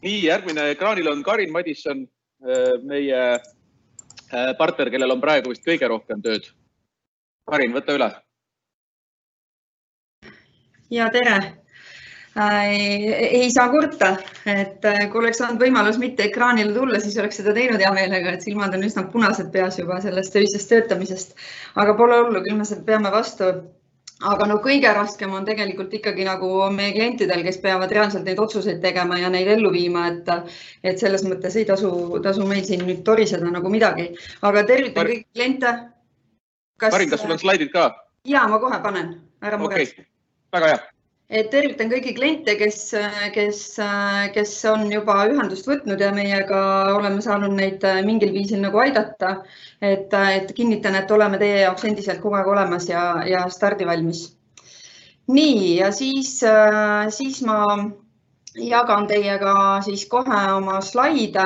Nii, järgmine ekraanil on Karin Madisson, meie partner, kellel on praegu vist kõige rohkem tööd. Karin, võta üle. Ja tere. Ei saa kurta, et kui oleks saanud võimalus mitte ekraanile tulla, siis oleks seda teinud hea meelega, et silmad on üsna punased peas juba sellest öisest töötamisest. Aga pole hullu, küll me seda peame vastu. Aga no kõige raskem on tegelikult ikkagi nagu meie klientidel, kes peavad reaalselt neid otsuseid tegema ja neid ellu viima, et selles mõttes ei tasu meil siin nüüd toriseda nagu midagi. Aga tervitan kõiki kliente. Karin, kas sul on slaidid ka? Jaa, ma kohe panen. Ära mures. Väga hea. Tervitan kõiki kliente, kes on juba ühendust võtnud ja meiega oleme saanud neid mingil viisil nagu aidata. Et kinnitan, et oleme teie jaoks endiselt kogu aeg olemas ja stardivalmis. Nii, ja siis ma jagan teiega siis kohe oma slaide,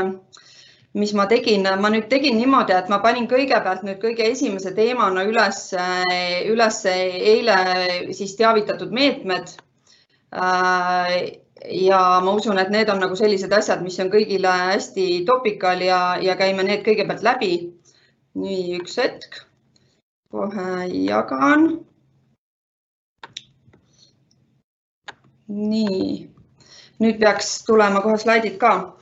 mis ma tegin. Ma nüüd tegin niimoodi, et ma panin kõigepealt nüüd kõige esimese teemana üles eile siis teavitatud meetmed. Ja ma usun, et need on nagu sellised asjad, mis on kõigile hästi topikal ja käime need kõigepealt läbi. Nii, üks hetk. Kohe jagan. Nii, nüüd peaks tulema kohe slaidid ka.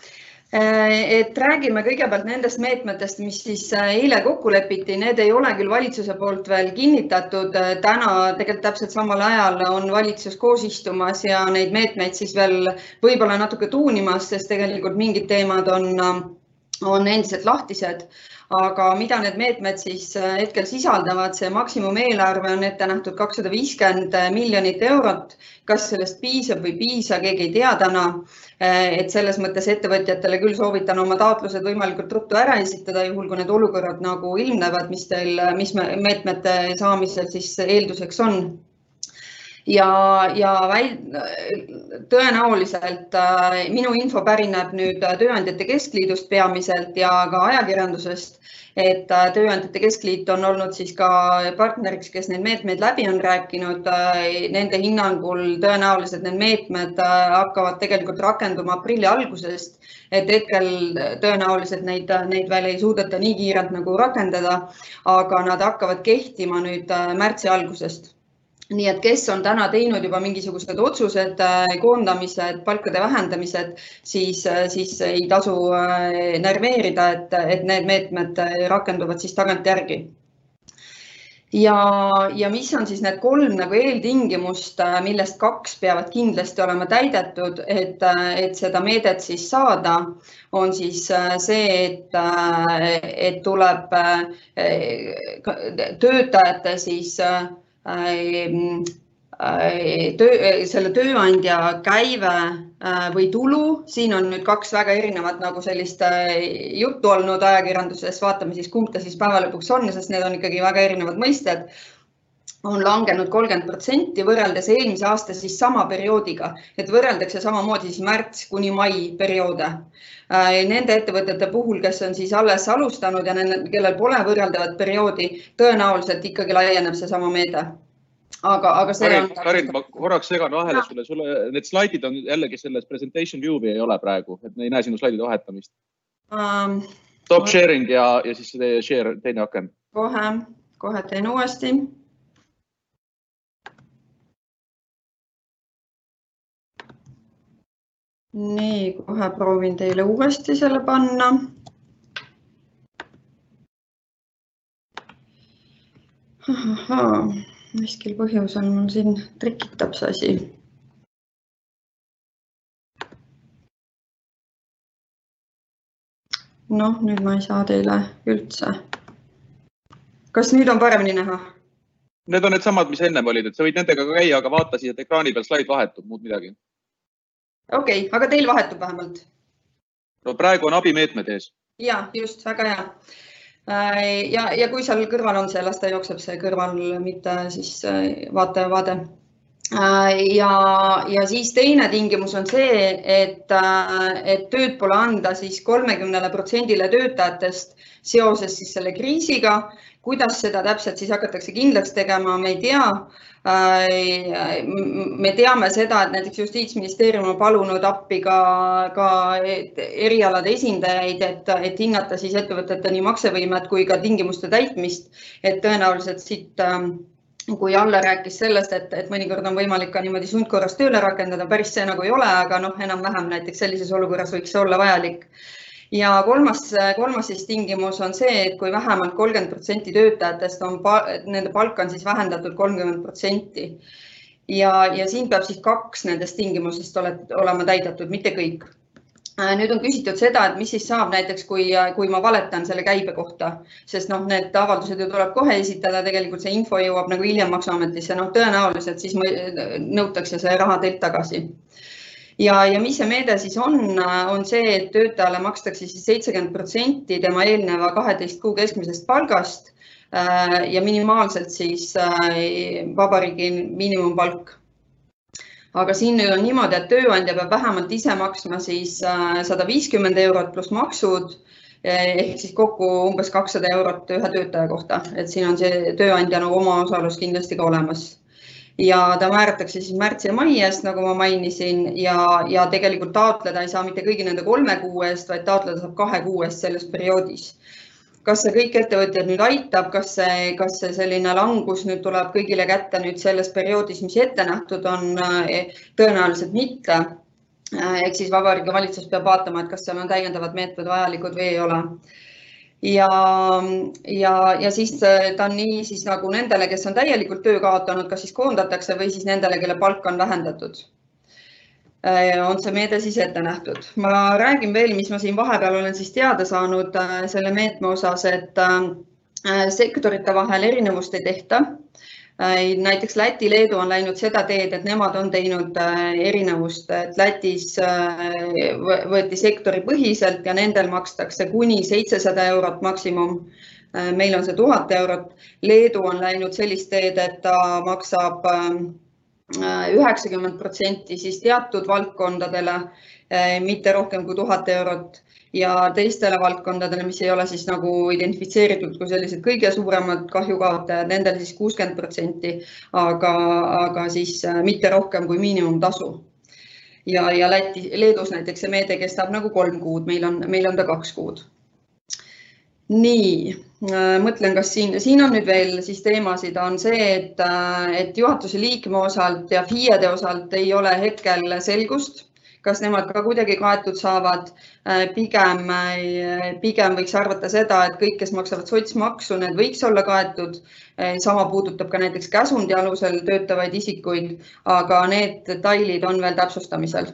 Et räägime kõigepealt nendest meetmetest, mis siis eile kokku lepiti. Need ei ole küll valitsuse poolt veel kinnitatud. Täna tegelikult täpselt samal ajal on valitsus koos istumas ja neid meetmeid siis veel võib-olla natuke tuunimas, sest tegelikult mingid teemad on endiselt lahtised. Aga mida need meetmed siis hetkel sisaldavad? See maksimumeelarve on ette nähtud 250 miljonit eurot. Kas sellest piisab või piisa, keegi ei tea täna. Et selles mõttes ettevõtjatele küll soovitan oma taotlused võimalikult ruttu ära esitada, juhul kui need olukorrad nagu ilmnevad, mis meetmete saamisel siis eelduseks on. Ja tõenäoliselt minu info pärineb nüüd Tööandjate Keskliidust peamiselt ja ka ajakirjandusest, et Tööandjate Keskliit on olnud siis ka partneriks, kes need meetmeid läbi on rääkinud. Nende hinnangul tõenäoliselt need meetmed hakkavad tegelikult rakenduma aprilli algusest, et hetkel tõenäoliselt neid veel ei suudeta nii kiirelt nagu rakendada, aga nad hakkavad kehtima nüüd märtsi algusest. Nii et kes on täna teinud juba mingisugused otsused, koondamised, palkade vähendamised, siis ei tasu närveerida, et need meetmed rakenduvad siis tagantjärgi. Ja mis on siis need 3 nagu eeltingimust, millest 2 peavad kindlasti olema täidetud, et seda meedet siis saada, on siis see, et tuleb töötajate siis selle tööandja käive või tulu. Siin on nüüd 2 väga erinevat nagu sellist juttu olnud ajakirjanduses. Vaatame siis, kumb ta siis päeva lõpuks on, sest need on ikkagi väga erinevad mõisted. On langenud 30% võrreldes eelmise aasta siis sama perioodiga, et võrreldakse samamoodi siis märts kuni mai perioode. Nende ettevõtete puhul, kes on siis alles alustanud ja kellel pole võrreldavat perioodi, tõenäoliselt ikkagi laieneb see sama meede. Aga see on... Karin, ma korraks segan vahele sulle. Need slaidid on jällegi selles presentation view ei ole praegu, et me ei näe sinu slaidide vahetamist. Top sharing ja siis share teine aken. Kohe teen uuesti. Nii, kohe proovin teile uuesti selle panna. Miskil põhjusel mul siin trikitab see asi. Noh, nüüd ma ei saa teile üldse. Kas nüüd on paremini näha? Need on need samad, mis ennem olid, et sa võid nendega ka käia, aga vaata siis, et ekraani peal slaid vahetub, muud midagi. Okei, aga teil vahetub vähemalt? No praegu on abimeetmed ees. Ja, just, väga hea. Ja kui seal kõrval on see, las ta jookseb see kõrval, mitte siis vaade. Ja siis teine tingimus on see, et tööd pole anda siis 30% töötajatest seoses siis selle kriisiga Kuidas seda täpselt siis hakatakse kindlaks tegema, me ei tea. Me teame seda, et näiteks Justiitsministeerium on palunud appi ka erialade esindajaid, et hinnata siis ettevõtete nii maksevõimet kui ka tingimuste täitmist, et tõenäoliselt siit kui Alle rääkis sellest, et mõnikord on võimalik ka niimoodi sundkorras tööle rakendada, päris see nagu ei ole, aga enam-vähem näiteks sellises olukorras võiks see olla vajalik. Ja kolmas siis tingimus on see, et kui vähemalt 30% töötajatest nende palk on siis vähendatud 30%. Ja siin peab siis 2 nendest tingimusest olema täidetud, mitte kõik. Nüüd on küsitud seda, et mis siis saab näiteks, kui ma valetan selle käibe kohta, sest need avaldused ju tuleb kohe esitada, tegelikult see info jõuab nagu hiljem maksuametisse, tõenäoliselt siis nõutakse see raha teilt tagasi. Ja mis see meede siis on see, et töötajale makstakse siis 70% tema eelneva 12 kuu keskmisest palgast ja minimaalselt siis vabariigi miinimumpalk. Aga siin nüüd on niimoodi, et tööandja peab vähemalt ise maksma siis 150 eurot pluss maksud, ehk siis kokku umbes 200 eurot ühe töötaja kohta. Et siin on see tööandja oma osalus kindlasti ka olemas. Ja ta määratakse siis märtsi ja mai eest, nagu ma mainisin, ja tegelikult taotleda ei saa mitte kõigi nende 3 kuu eest, vaid taotleda saab 2 kuu eest selles perioodis. Kas see kõik ettevõtjad nüüd aitab, kas see selline langus nüüd tuleb kõigile kätte nüüd selles perioodis, mis ette nähtud on, tõenäoliselt mitte. Ehk siis Vabariigi Valitsus peab vaatama, et kas seal on täiendavad meetmed vajalikud või ei ole. Ja siis ta on nii siis nagu nendele, kes on täielikult töö kaotanud, kas siis koondatakse või siis nendele, kelle palk on vähendatud. On see meede siis ette nähtud. Ma räägin veel, mis ma siin vahepeal olen siis teada saanud selle meetme osas, et sektorite vahel erinevust ei tehta. Näiteks Läti, Leedu on läinud seda teed, et nemad on teinud erinevust, et Lätis võeti sektori põhiselt ja nendel makstakse kuni 700 eurot maksimum. Meil on see 1000 eurot. Leedu on läinud sellist teed, et ta maksab 90% siis teatud valdkondadele, mitte rohkem kui 1000 eurot ja teistele valdkondadele, mis ei ole siis nagu identifitseeritud kui sellised kõige suuremad kahjukaotajad, nendel siis 60%, aga siis mitte rohkem kui miinimumtasu. Ja Leedus näiteks see meede kestab nagu 3 kuud, meil on ta 2 kuud. Nii, mõtlen, kas siin on nüüd veel siis teemasid, on see, et juhatuse liikme osalt ja FIE-de osalt ei ole hetkel selgust, kas nemad ka kuidagi kaetud saavad. Pigem võiks arvata seda, et kõik, kes maksavad sotsmaksu, need võiks olla kaetud. Sama puudutab ka näiteks käsundi alusel töötavaid isikuid, aga need detailid on veel täpsustamisel.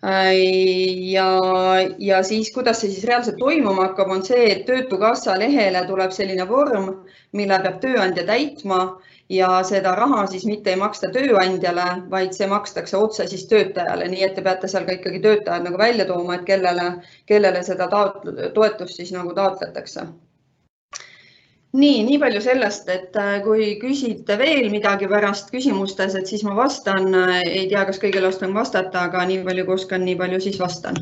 Ja siis, kuidas see siis reaalselt toimuma hakkab, on see, et Töötukassa lehele tuleb selline vorm, mille peab tööandja täitma ja seda raha siis mitte ei maksta tööandjale, vaid see makstakse otse siis töötajale. Nii et te peate seal ka ikkagi töötajad nagu välja tooma, et kellele seda toetust siis nagu taotletakse. Nii palju sellest, et kui küsite veel midagi pärast küsimustes, et siis ma vastan. Ei tea, kas kõigile oskan vastata, aga nii palju kui oskan, nii palju siis vastan.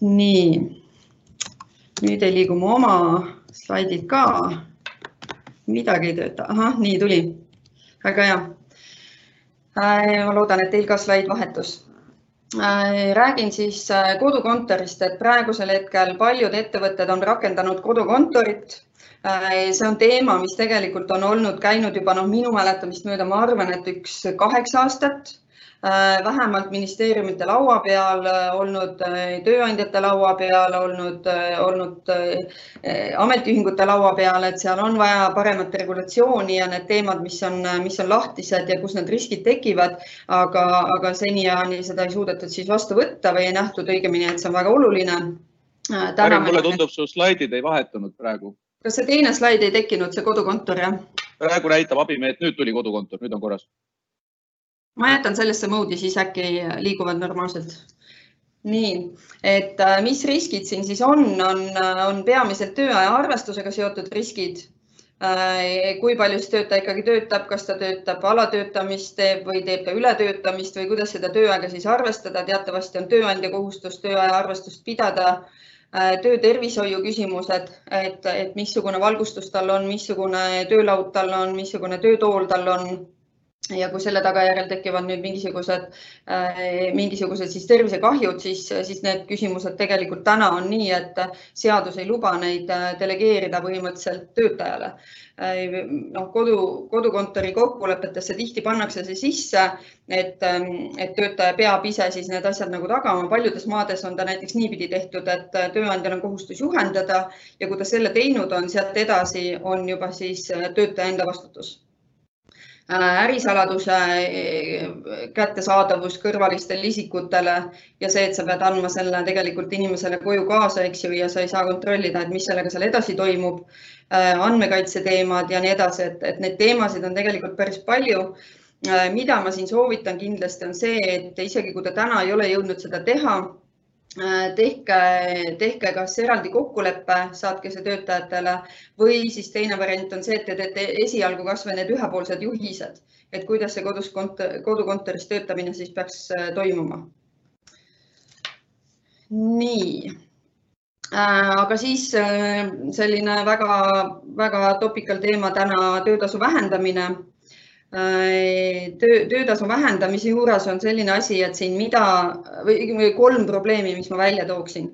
Nii, nüüd ei liigu mu oma slaidid ka. Midagi ei tööta. Ahah, nii tuli. Väga hea. Ma loodan, et teil ka slaid vahetus. Räägin siis kodukontorist, et praegusel hetkel paljud ettevõtted on rakendanud kodukontorit. See on teema, mis tegelikult on käinud juba minu mäletamist mööda, ma arvan, et 8 aastat, vähemalt ministeeriumite laua peal, olnud tööandjate laua peal, olnud ametiühingute laua peal, et seal on vaja paremat regulatsiooni ja need teemad, mis on lahtised ja kus need riskid tekivad, aga seniajani seda ei suudetud siis vastu võtta või ei nähtud õigemini, et see on väga oluline. Mulle tundub, su slaidid ei vahetunud praegu. Kas see teine slaid ei tekkinud, see kodukontor, jah? Praegu näitab abimeet, nüüd tuli kodukontor, nüüd on korras. Ma jätan sellesse moodi, siis äkki liiguvad normaalselt. Nii, et mis riskid siin siis on peamiselt tööaja arvestusega seotud riskid. Kui palju siis töötaja ikkagi töötab, kas ta töötab alatöötamist teeb või teeb ta ületöötamist või kuidas seda tööaega siis arvestada. Teatavasti on tööandja kohustus tööaja arvestust pidada. töötervishoiu küsimused, et missugune valgustus tal on, missugune töölaud tal on, missugune töötool tal on. Ja kui selle tagajärjel tekivad nüüd mingisugused siis tervisekahjud, siis need küsimused tegelikult täna on nii, et seadus ei luba neid delegeerida põhimõtteliselt töötajale. Kodukontori kokkulepetesse tihti pannakse see sisse, et töötaja peab ise siis need asjad nagu tagama. Paljudes maades on ta näiteks niipidi tehtud, et tööandjal on kohustus juhendada ja kui ta selle teinud on, sealt edasi on juba siis töötaja enda vastutus. Ärisaladuse kättesaadavus kõrvalistele isikutele ja see, et sa pead andma selle tegelikult inimesele koju kaasa, eks ju, ja sa ei saa kontrollida, et mis sellega seal edasi toimub, andmekaitse teemad ja nii edasi, et need teemasid on tegelikult päris palju. Mida ma siin soovitan kindlasti on see, et isegi kui ta täna ei ole jõudnud seda teha, tehke kas eraldi kokkuleppe, saatke see töötajatele või siis teine variant on see, et te teete esialgu kas või need ühepoolsed juhised, et kuidas see kodukontoris töötamine siis peaks toimuma. Nii, aga siis selline väga topical teema täna töötasu vähendamine. Töötasu vähendamise juures on selline asi, et siin või 3 probleemi, mis ma välja tooksin.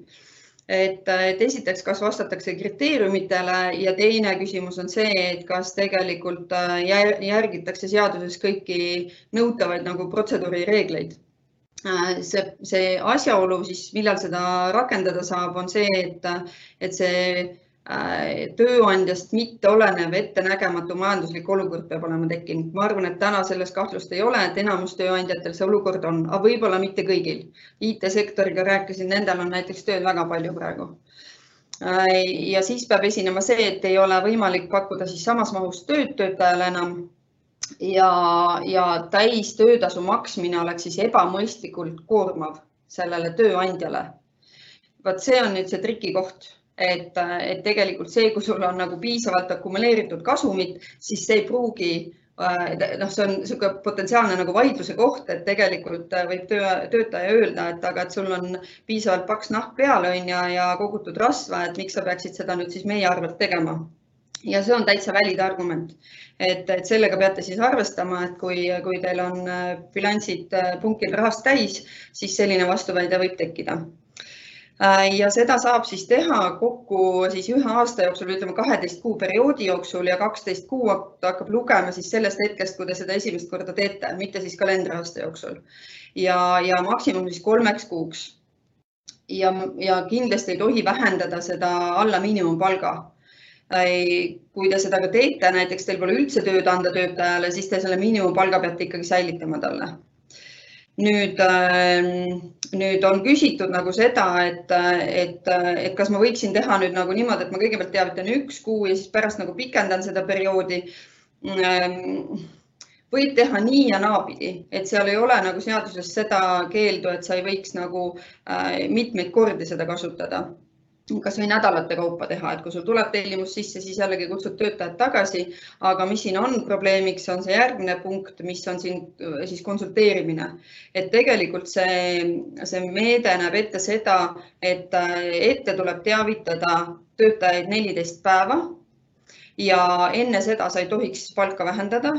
Et esiteks, kas vastatakse kriteeriumitele ja teine küsimus on see, et kas tegelikult järgitakse seaduses kõiki nõutavaid nagu protseduurireegleid. See asjaolu, siis millal seda rakendada saab, on see, et see tööandjast mitte olenev ettenägematu majanduslik olukord peab olema tekkinud. Ma arvan, et täna selles kahtlust ei ole, et enamus tööandjatel see olukord on, aga võib-olla mitte kõigil. IT-sektoriga rääkisin, nendel on näiteks tööd väga palju praegu. Ja siis peab esinema see, et ei ole võimalik pakkuda siis samas mahus töötajale enam ja täis töötasu maksmine oleks siis ebamõistlikult koormav sellele tööandjale. Vaat see on nüüd see trikikoht. Et tegelikult see, kui sul on nagu piisavalt akumuleeritud kasumit, siis see ei pruugi, see on niisugune potentsiaalne nagu vaidluse koht, et tegelikult võib töötaja öelda, et sul on piisavalt paks nahk peale ja kogutud rasva, et miks sa peaksid seda nüüd siis meie arvelt tegema. Ja see on täitsa valid argument, et sellega peate siis arvestama, et kui teil on bilansid punkil rahast täis, siis selline vastuväide võib tekkida. Ja seda saab siis teha kokku siis 1 aasta jooksul, ütleme 12 kuu perioodi jooksul ja 12 kuu hakkab lugema siis sellest hetkest, kui te seda esimest korda teete, mitte siis kalendriaasta jooksul. Ja maksimum siis 3 kuuks. Ja kindlasti ei tohi vähendada seda alla miinimumpalga. Kui te seda ka teete, näiteks teil pole üldse tööd anda töötajale, siis te selle miinimumpalga peate ikkagi säilitama talle. Nüüd on küsitud nagu seda, et kas ma võiksin teha nüüd nagu niimoodi, et ma kõigepealt teavitan 1 kuu ja siis pärast nagu pikendan seda perioodi. Võib teha nii ja naapidi, et seal ei ole nagu seaduses seda keeldu, et sa ei võiks nagu mitmeid kordi seda kasutada. Kas või nädalate kaupa teha, et kui sul tuleb tellimus sisse, siis jällegi kutsud töötajad tagasi, aga mis siin on probleemiks, on see järgmine punkt, mis on siin siis konsulteerimine. Et tegelikult see meede näeb ette seda, et ette tuleb teavitada töötajaid 14 päeva ja enne seda sa ei tohiks palka vähendada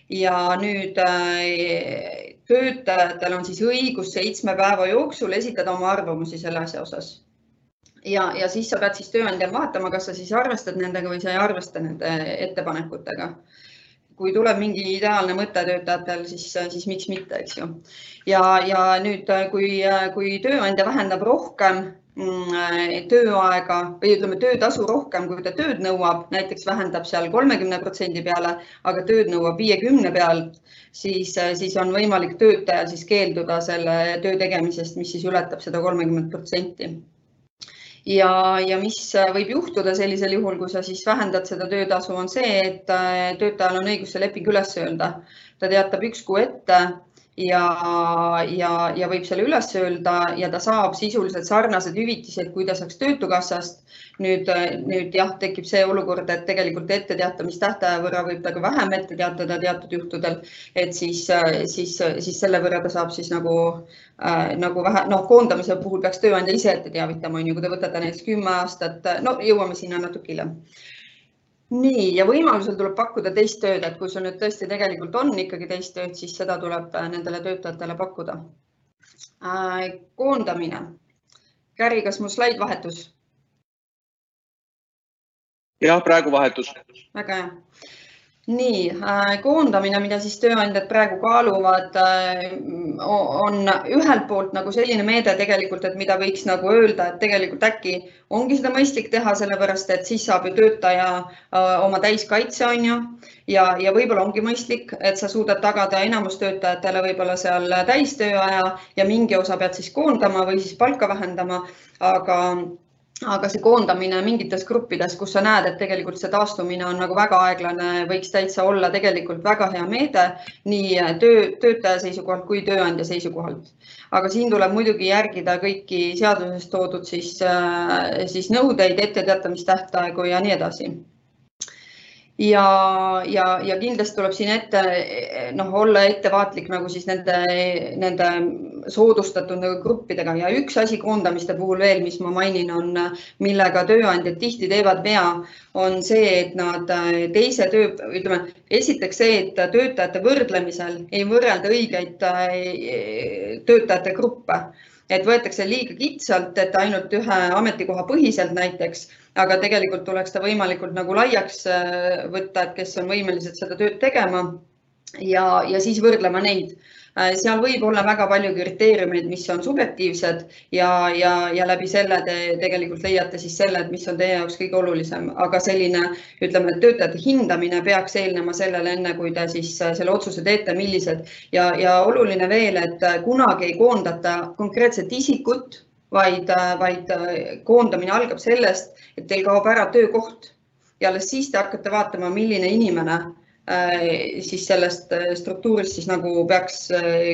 ja nüüd töötajatel on siis õigus 7 päeva jooksul esitada oma arvamusi selle asja osas. Ja siis sa pead siis tööandjal vaatama, kas sa siis arvestad nendega või sa ei arvesta nende ettepanekutega. Kui tuleb mingi ideaalne mõte töötajatel, siis miks mitte, eks ju. Ja nüüd, kui tööandja vähendab rohkem tööaega või ütleme töötasu rohkem, kui ta tööd nõuab, näiteks vähendab seal 30% peale, aga tööd nõuab 50% pealt, siis on võimalik töötajal siis keelduda selle töö tegemisest, mis siis ületab seda 30%. Ja mis võib juhtuda sellisel juhul, kui sa siis vähendad seda töötasu, on see, et töötajal on õigus see leping üles öelda. Ta teatab 1 kuu ette ja võib selle üles öelda ja ta saab sisuliselt sarnased hüvitised, kui ta saaks Töötukassast. Nüüd jah, tekib see olukord, et tegelikult etteteatamistähtaja võrra võib ta ka vähem ette teatada teatud juhtudel, et siis selle võrra ta saab siis nagu vähe, koondamise puhul peaks tööandja ise ette teavitama, kui te võtate näiteks 10 aastat, jõuame sinna natuke hiljem. Nii, ja võimalusel tuleb pakkuda teist tööd, et kui sul nüüd tõesti tegelikult on ikkagi teist tööd, siis seda tuleb nendele töötajatele pakkuda. Koondamine. Käri, kas mu slaid vahetus? Jah, praegu vahetus. Väga hea. Nii, koondamine, mida siis tööandjad praegu kaaluvad, on ühelt poolt nagu selline meede tegelikult, et mida võiks nagu öelda, et tegelikult äkki ongi seda mõistlik teha, sellepärast et siis saab ju töötaja oma täiskaitse on ju ja võib-olla ongi mõistlik, et sa suudad tagada enamus töötajatele võib-olla seal täistööaja ja mingi osa pead siis koondama või siis palka vähendama, aga see koondamine mingites gruppides, kus sa näed, et tegelikult see taastumine on nagu väga aeglane, võiks täitsa olla tegelikult väga hea meede nii töötaja seisukohalt kui tööandja seisukohalt. Aga siin tuleb muidugi järgida kõiki seaduses toodud siis nõudeid, etteteatamistähtaegu ja nii edasi. Ja kindlasti tuleb siin olla ettevaatlik nagu siis nende soodustatud gruppidega ja üks asi koondamiste puhul veel, mis ma mainin on, millega tööandjad tihti teevad vea, on see, et nad esiteks see, et töötajate võrdlemisel ei võrrelda õigeid töötajate gruppe. Et võetakse liiga kitsalt, et ainult ühe ametikoha põhiselt näiteks, aga tegelikult tuleks ta võimalikult nagu laiaks võtta, et kes on võimelised seda tööd tegema ja siis võrdlema neid. Seal võib olla väga palju kriteeriumeid, mis on subjektiivsed ja läbi selle te tegelikult leiate siis selle, et mis on teie jaoks kõige olulisem. Aga selline, ütleme, töötajate hindamine peaks eelnema sellele enne, kui te siis selle otsuse teete, millised. Ja oluline veel, et kunagi ei koondata konkreetset isikut, vaid koondamine algab sellest, et teil kaob ära töökoht ja alles siis te hakkate vaatama, milline inimene siis sellest struktuurist siis nagu peaks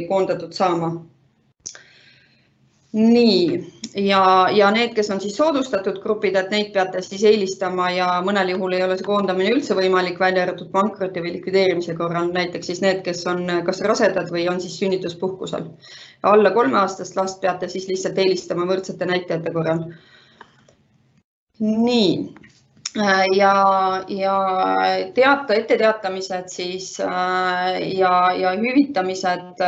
koondatud saama. Nii, ja need, kes on siis soodustatud grupid, et neid peate siis eelistama ja mõnel juhul ei ole see koondamine üldse võimalik, välja arvatud pankroti või likvideerimise korral, näiteks siis need, kes on kas rasedad või on siis sünnituspuhkusel. Alla 3-aastast last peate siis lihtsalt eelistama võrdsete näitajate korral. Nii. Ja etteteatamised siis ja hüvitamised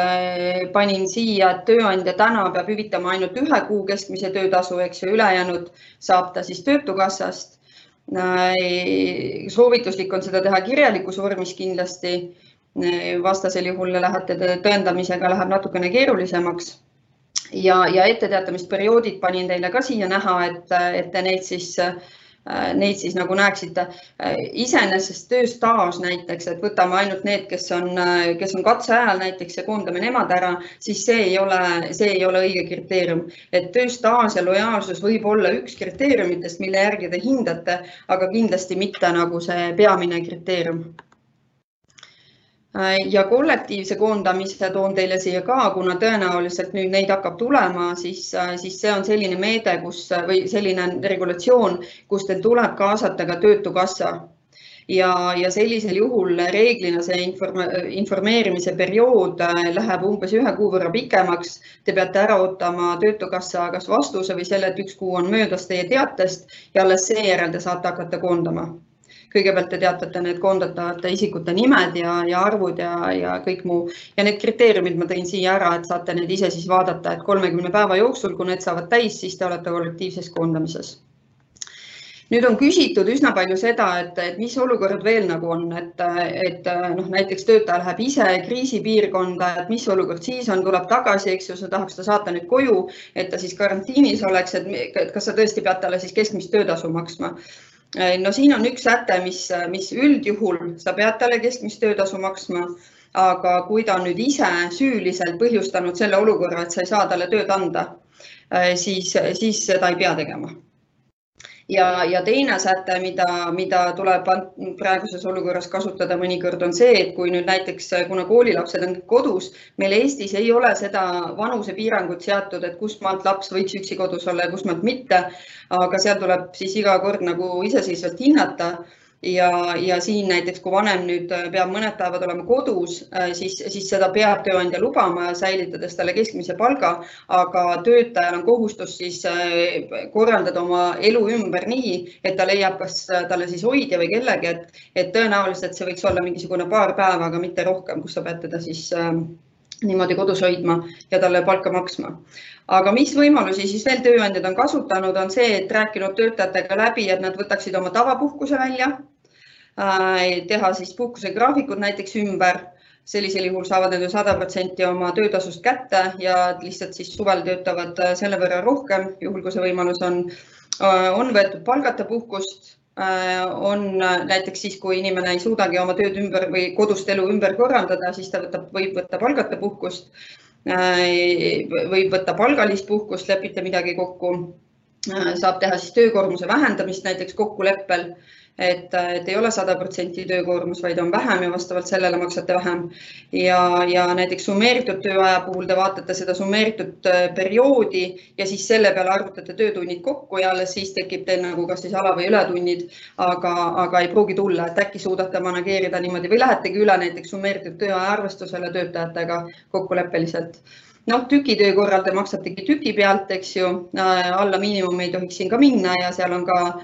panin siia, et tööandja täna peab hüvitama ainult 1 kuu keskmise töötasu, eks ju, ülejäänud saab ta siis Töötukassast. Soovituslik on seda teha kirjalikus vormis kindlasti, vastasel juhul lähete tõendamisega läheb natukene keerulisemaks. Ja etteteatamisperioodid panin teile ka siia näha, et te neid siis nagu näeksite. Iseenesest tööstaaž näiteks, et võtame ainult need, kes on katseajal näiteks ja koondame nemad ära, siis see ei ole õige kriteerium. Et tööstaaž ja lojaalsus võib olla üks kriteeriumitest, mille järgi te hindate, aga kindlasti mitte nagu see peamine kriteerium. Ja kollektiivse koondamise toon teile siia ka, kuna tõenäoliselt nüüd neid hakkab tulema, siis see on selline meede, või selline regulatsioon, kus teil tuleb kaasata ka Töötukassa. Ja sellisel juhul reeglina see informeerimise periood läheb umbes 1 kuu võrra pikemaks. Te peate ära ootama Töötukassa kas vastuse või selle, et 1 kuu on möödas teie teatest ja alles seejärel te saate hakata koondama. Kõigepealt te teatate need koondatavate isikute nimed ja arvud ja kõik muu. Ja need kriteeriumid ma tõin siia ära, et saate need ise siis vaadata, et 30 päeva jooksul, kui need saavad täis, siis te olete kollektiivses koondamises. Nüüd on küsitud üsna palju seda, et mis olukord veel nagu on, et näiteks töötaja läheb ise kriisipiirkonda, et mis olukord siis on, tuleb tagasi, eks ju, sa tahaks ta saata nüüd koju, et ta siis karantiinis oleks, et kas sa tõesti pead talle siis keskmist töötasu maksma. No siin on üks säte, mis üldjuhul sa pead talle keskmist töötasu maksma, aga kui ta on nüüd ise süüliselt põhjustanud selle olukorra, et sa ei saa talle tööd anda, siis seda ei pea tegema. Ja teine säte, mida tuleb praeguses olukorras kasutada mõnikord on see, et kui nüüd näiteks, kuna koolilapsed on kodus, meil Eestis ei ole seda vanusepiirangut seatud, et kust maalt laps võiks üksi kodus olla ja kust maalt mitte, aga seal tuleb siis iga kord nagu iseseisvalt hinnata. Ja siin näiteks, kui vanem nüüd peab mõned päevad olema kodus, siis seda peab tööandja lubama, säilitades talle keskmise palga, aga töötajal on kohustus siis korraldada oma elu ümber nii, et ta leiab kas talle siis hoidja või kellegi, et tõenäoliselt see võiks olla mingisugune paar päeva, aga mitte rohkem, kus sa pead teda siis niimoodi kodus hoidma ja talle palka maksma. Aga mis võimalusi siis veel tööandjad on kasutanud, on see, et rääkinud töötajatega läbi, et nad võtaksid oma tavapuhkuse välja, teha siis puhkusegraafikud näiteks ümber. Sellisel juhul saavad nad 100% oma töötasust kätte ja lihtsalt siis suvel töötavad selle võrra rohkem, juhul kui see võimalus on võetud palgata puhkust. On näiteks siis, kui inimene ei suudagi oma tööd ümber või kodust elu ümber korraldada, siis ta võib võtta palgata puhkust, võib võtta palgalist puhkust, lepite midagi kokku, saab teha siis töökoormuse vähendamist näiteks kokkuleppel, et ei ole 100% töökoormus, vaid on vähem ja vastavalt sellele maksate vähem. Ja näiteks summeeritud tööaja puhul te vaatate seda summeeritud perioodi ja siis selle peale arvutate töötunnid kokku ja alles siis tekib teil nagu kas siis ala- või ületunnid, aga ei pruugi tulla, et äkki suudate manageerida niimoodi või lähetegi üle näiteks summeeritud tööaja arvestusele töötajatega kokkuleppeliselt. Tükitöö korral te maksategi tüki pealt, eks ju, alla miinimum ei tohiks siin ka minna ja seal on ka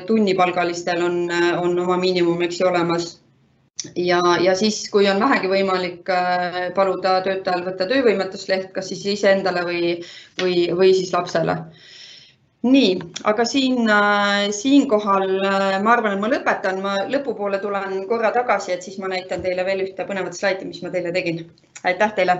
tunnipalgalistel on oma miinimum, eks ju, olemas. Ja siis, kui on vähegi võimalik paluda töötajal võtta töövõimetusleht, kas siis iseendale või siis lapsele. Nii, aga siinkohal ma arvan, et ma lõpetan. Ma lõpupoole tulen korra tagasi, et siis ma näitan teile veel ühte põnevat slaidi, mis ma teile tegin. Aitäh teile!